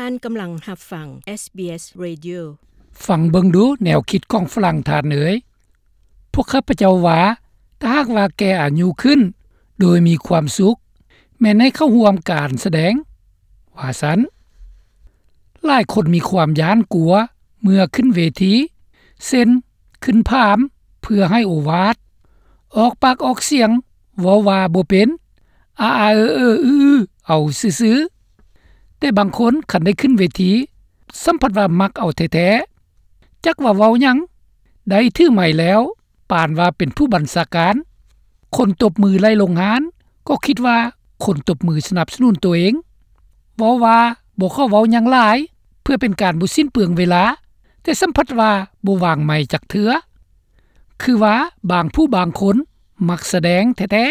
ທ່ານກຳລັງຮັບຟັງ ເອສບີເອສ Radio. ຟັງເບິ່ງດູແນວຄິດຂອງຝຣັ່ງທ່ານເອີຍ. ພວກຂ້າພະເຈົ້າວ່າ ຖ້າຫາກວ່າແກ່ອາຍຸຂຶ້ນໂດຍມີຄວາມສຸກ ແມ່ນໃຫ້ເຂົ້າຮ່ວມການສະແດງ ວ່າຊັ້ນ. ຫຼາຍຄົນມີຄວາມຢ້ານກົວເມື່ອຂຶ້ນເວທີ ເຊັ່ນ ຂຶ້ນພາມເພື່ອໃຫ້ໂອວາດ, ອອກປາກອອກສຽງເວົ້າວ່າບໍ່ເປັນ, ອາອາເອີເອີອືອອືອເອົາຊື່ໆ. ແຕ່ບາງຄົນຄັນໄດ້ຂຶ້ນເວທີ ສ່ຳພັດວ່າມັກເອົາແທ້ໆ. ຈັກວ່າເວົ້າຫຍັງ, ໄດ້ຖືໄມແລ້ວ ປານວ່າເປັນຜູ້ບັນຊາການ. ຄົນຕົບມືໄຫຼລົງຮານ ກໍຄິດວ່າຄົນຕົບມືສະໜັບສະໜູນໂຕເອງ. ເວົ້າວ່າບໍ່ຂໍເວົ້າຫຍັງຫຼາຍ ເພື່ອເປັນການບໍ່ສິ້ນເປືອງເວລາ, ແຕ່ສ່ຳພັດວ່າບໍ່ວາງໄມຈັກເທື່ອ. ຄືວ່າບາງຜູ້ບາງຄົນມັກສະແດງແທ້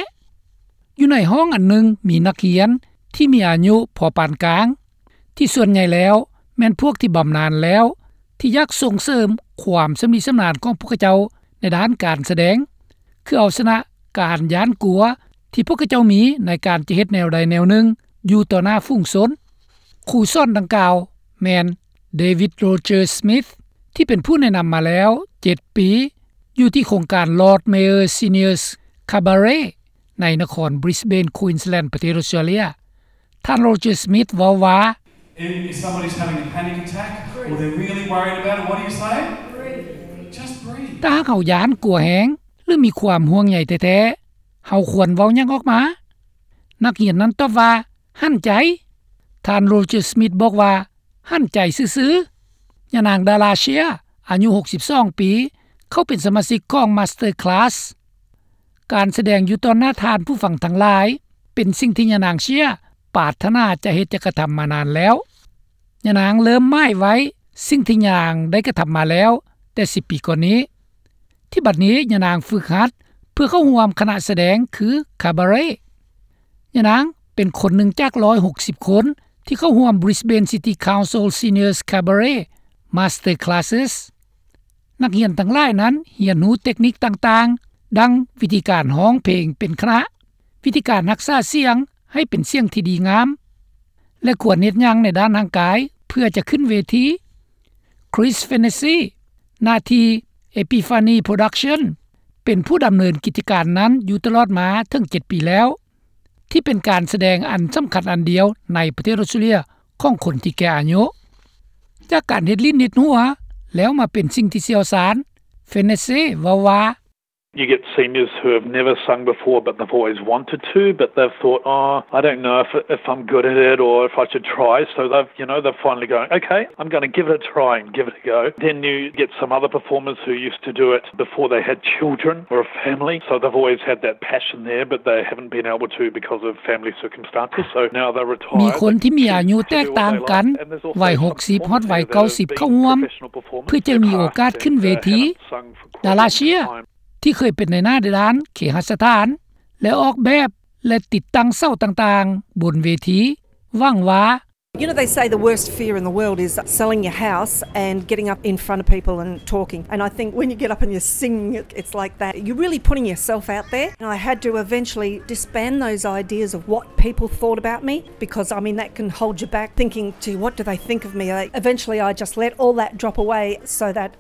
ໆ. ຢູ່ໃນຫ້ອງອັນໜຶ່ງມີນັກຮຽນທີ່ມີອາຍຸພໍປານກາງ ທີ່ສ່ວນໃຫຍ່ແລ້ວແມ່ນພວກທີ່ບຳນານແລ້ວ ທີ່ຢາກສົ່ງເສີມຄວາມຊຳນິຊຳນານຂອງພວກເຂົາເຈົ້າໃນດ້ານການສະແດງ ຄືເອົາຊະນະການຢ້ານກົວທີ່ພວກເຂົາເຈົ້າມີໃນການຈະເຮັດແນວໃດແນວໜຶ່ງຢູ່ຕໍ່ໜ້າຝູງຊົນ. ຄູສອນດັ່ງກ່າວແມ່ນ David Roger Smith ທີ່ເປັນຜູ້ແນະນຳມາແລ້ວເຈັດປີ ຢູ່ທີ່ໂຄງການ Lord Mayor Seniors Cabaret ໃນນະຄອນ Brisbane Queensland ປະເທດອອສເຕຣເລຍ. ທ່ານ Roger Smith ເວົ້າວ່າ If somebody's having a panic attack or they're really worried about it, what do you say? Just breathe. ຖ້າຫາກເຮົາຢ້ານກົວແຮງ ຫຼື ມີຄວາມຫ່ວງໃຍແທ້ໆ ເຮົາຄວນເວົ້າຫຍັງອອກມາ? ນັກຮຽນນັ້ນຕອບວ່າ ຫັນໃຈ. ທ່ານ Roger Smith ບອກວ່າ ຫັນໃຈຊື່ໆ. ຍານາງ Darla Shea ອາຍຸຫົກສິບສອງປີ ເຂົ້າເປັນສະມາຊິກຂອງ Master Class. ການສະແດງຢູ່ຕໍ່ໜ້າທ່ານຜູ້ຟັງທັງຫຼາຍ ເປັນສິ່ງທີ່ຍານາງ Shea ປາດຖະໜາຈະເຮັດຈະກະທຳມານານແລ້ວ. ຍານາງເລີ່ມໝາຍໄວ້ສິ່ງທີ່ຍານາງໄດ້ກະທຳມາແລ້ວແຕ່ສິບປີກ່ອນນີ້. ທີ່ບັດນີ້ຍານາງຝຶກຫັດເພື່ອເຂົ້າຮ່ວມຄະນະສະແດງຄື Cabaret. ຍານາງເປັນຄົນໜຶ່ງຈາກຮ້ອຍຫົກສິບຄົນທີ່ເຂົ້າຮ່ວມ Brisbane City Council Seniors Cabaret Master Classes. ນັກຮຽນທັງຫຼາຍນັ້ນຮຽນຮູ້ເຕັກນິກຕ່າງໆ ດັ່ງວິທີການຮ້ອງເພງເປັນຄະນະ, ວິທີການຮັກສາສຽງໃຫ້ເປັນສຽງທີ່ດີງາມ ແລະ ຄວນເຮັດຫຍັງໃນດ້ານຮ່າງກາຍເພື່ອຈະຂຶ້ນເວທີ. Chris Fennessy ໜ້າທີ່ Epiphany Production ເປັນຜູ້ດຳເນີນກິດຈະການນັ້ນຢູ່ຕະຫຼອດມາເຖິງເຈັດປີແລ້ວ ທີ່ເປັນການສະແດງອັນສຳຄັນອັນດຽວໃນປະເທດອອສເຕຣເລຍຂອງຄົນທີ່ແກ່ອາຍຸ. ຈາກການເຮັດຫຼິ້ນເຮັດຫົວ ແລ້ວມາເປັນສິ່ງທີ່ຊ່ຽວຊານ, Fennessy ເວົ້າວ່າ You get seniors who have never sung before, but they've always wanted to, but they've thought, "Oh, I don't know if, if I'm good at it or if I should try." So they've, you know, they're finally going, "Okay, I'm gonna give it a try and give it a go." Then you get some other performers who used to do it before they had children or a family, so they've always had that passion there, but they haven't been able to because of family circumstances. So now they're retired, ມີຄົນທີ່ມີອາຍຸແຕກຕ່າງກັນ, ໄວຫົກສິບຮອດໄວເກົ້າສິບເຂົ້າຮ່ວມ ເພື່ອຈະມີໂອກາດຂຶ້ນເວທີ. Darla Shea ທີ່ເຄີຍເປັນນາຍໜ້າດ້ານເຄຫະສະຖານ ແລະ ອອກແບບ ແລະ ຕິດຕັ້ງເສົາຕ່າງໆບົນເວທີ ຫວັງວ່າ You know, they say the worst fear in the world is selling your house and getting up in front of people and talking. And I think when you get up and you're singing, it, it's like that. You're really putting yourself out there. And I had to eventually disband those ideas of what people thought about me, because, I mean, that can hold you back thinking, "Gee, what do they think of me?" I, eventually, I just let all that drop away so that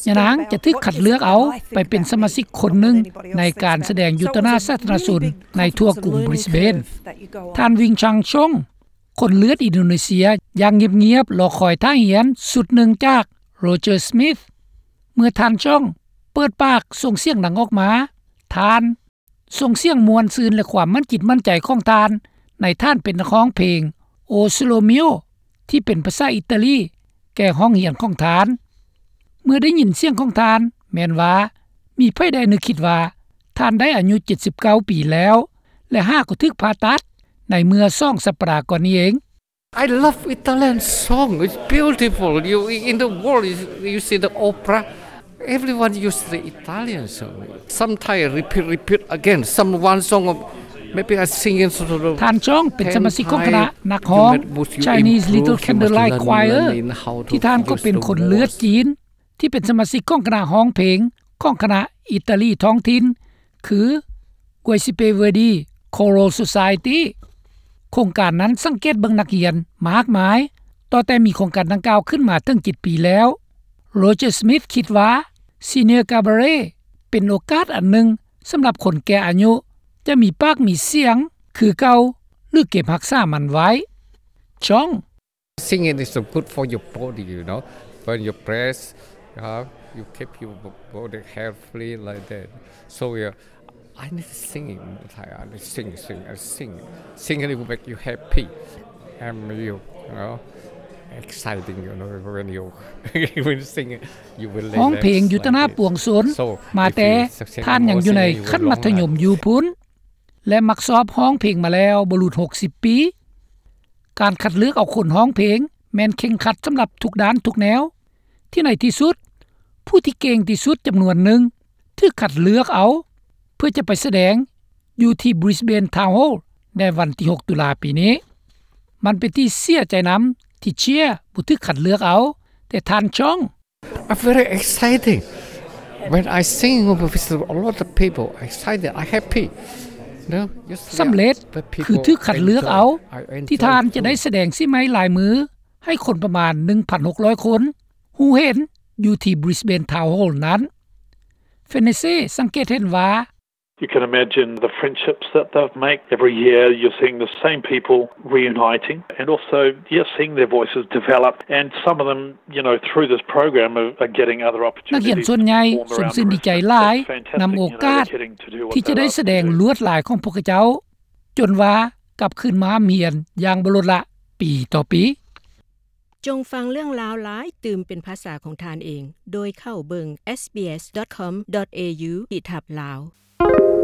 ຍານາງຈະຖືກຄັດເລືອກເອົາໄປເປັນສະມາຊິກຄົນໜຶ່ງໃນການສະແດງຢູ່ຕໍ່ໜ້າສາທາລະນະຊົນໃນທົ່ວກຸງບຣິສເບນ. ທ່ານ ວິງ ຊາງຊົງ ຄົນເລືອດອິນໂດເນເຊຍ ຢ່າງງຽບໆ ລໍຄອຍທ່າຮຽນຊຸດໜຶ່ງຈາກໂຣເຈີ ສະມິດ. ເມື່ອທ່ານຊອງເປີດປາກສົ່ງສຽງດັງອອກມາ, ທ່ານ ສົ່ງສຽງມ່ວນຊື່ນ ແລະ ຄວາມໝັ້ນຈິດໝັ້ນໃຈຂອງທ່ານໃນທ່ານເປັນນັກຮ້ອງເພງ ໂອ ໂຊໂລມິໂອ ທີ່ເປັນພາສາອິຕາລີແກ່ຫ້ອງຮຽນຂອງທ່ານ. ເມື່ອໄດ້ຍິນສຽງຂອງທ່ານ ແມ່ນວ່າມີໃຜໃດນຶກຄິດວ່າທ່ານໄດ້ອາຍຸເຈັດສິບເກົ້າປີແລ້ວ ແລະ ຫາກໍຖືກຜ່າຕັດໃນເມື່ອສອງສັບປະດາກ່ອນນີ້ເອງ. I love Italian song. It's beautiful. You, in the world, you, you see the opera, everyone use the Italian song. Sometimes repeat, repeat again. Some one song, maybe I sing it sort of ທ່ານຊອງເປັນສະມາຊິກຂອງຄະນະນັກຮ້ອງ Chinese Little Candlelight Choir ທີ່ທ່ານກໍເປັນຄົນເລືອດຈີນ ທີ່ເປັນສະມາຊິກຂອງຄະນະຮ້ອງເພງຂອງຄະນະອິຕາລີທ້ອງຖິ່ນ ຄື Giuseppe Verdi Choral Society. ໂຄງການນັ້ນສັງເກດເບິ່ງນັກຮຽນມາກມາຍ ຕັ້ງແຕ່ມີໂຄງການດັ່ງກ່າວຂຶ້ນມາເຖິງເຈັດປີແລ້ວ. Roger Smith ຄິດວ່າ Senior Cabaret ເປັນໂອກາດອັນໜຶ່ງສຳລັບຄົນແກ່ອາຍຸຈະມີປາກມີສຽງຄືເກົ່າ ຫຼື ເກັບຮັກສາມັນໄວ້. John Singing is good for your body, you know, for your breath, uh, you keep your b- body healthy like that. So, yeah, I need singing. I need sing, sing, I sing. Singing will make you happy and you, you know, exciting, you know, when you when you sing, you will relax. ຮ້ອງເພງຢູ່ຕະໜ້າປວງຊົນ So, ມາແຕ່ if you sing ທ່ານຍັງຢູ່ໃນ more singing, you will ຂັ້ນມັດທະຍົມຢູ່ພຸ້ນ ແລະ ມັກຊອບຮ້ອງເພງມາແລ້ວບໍ່ຫຼຸດຫົກສິບປີ. ການຄັດເລືອກເອົາຄົນຮ້ອງເພງແມ່ນເຄັ່ງຄັດສຳລັບທຸກດ້ານທຸກແນວ ທີ່ໃນທີ່ສຸດ ຜູ້ທີ່ເກັ່ງທີ່ສຸດຈຳນວນໜຶ່ງຖືກຄັດເລືອກເອົາ ເພື່ອຈະໄປສະແດງຢູ່ທີ່ Brisbane Town Hall ໃນວັນທີຫົກ ຕຸລາປີນີ້. ມັນເປັນທີ່ເສຍໃຈນຳທີ່ Cher ບໍ່ຖືກຄັດເລືອກເອົາ, ແຕ່ທ່ານ John I'm very excited. When I sing with a lot of people, excited, I happy. No, you see, ສຳເລັດ but ຄື people ຖືກຄັດເລືອກເອົາ enjoy. I enjoy ທີ່ທ່ານຈະໄດ້ too. ສະແດງສີໄມ້ລາຍມືໃຫ້ຄົນປະມານ ໜຶ່ງພັນຫົກຮ້ອຍຄົນ ຮູ້ເຫັນຢູ່ທີ່ Brisbane Town Hall ນັ້ນ. Fenesse ສັງເກດເຫັນວ່າ You can imagine the friendships that they've made. Every year you're seeing the same people reuniting and also, yes, seeing their voices develop and some of them, you know, through this program are, are getting other ນັກຮຽນ opportunities ສ່ວນໃຫຍ່ to perform ຊົມຊື່ນ around ດີໃຈ Brisbane. ຫຼາຍ It's fantastic, ນຳໂອກາດ you know, they're getting to do what they love to do. ທີ່ຈະໄດ້ສະແດງລວດລາຍຂອງພວກເຂົາເຈົ້າ ຈົນວ່າກັບຄືນມາຮ່ຳຮຽນຢ່າງບໍ່ລົດລະປີຕໍ່ປີ. ຈົ່ງຟັງເລື່ອງລາວຫຼາຍຕື່ມເປັນພາສາຂອງທ່ານເອງ ໂດຍເຂົ້າເບິ່ງ sbs.com.au/lawSBS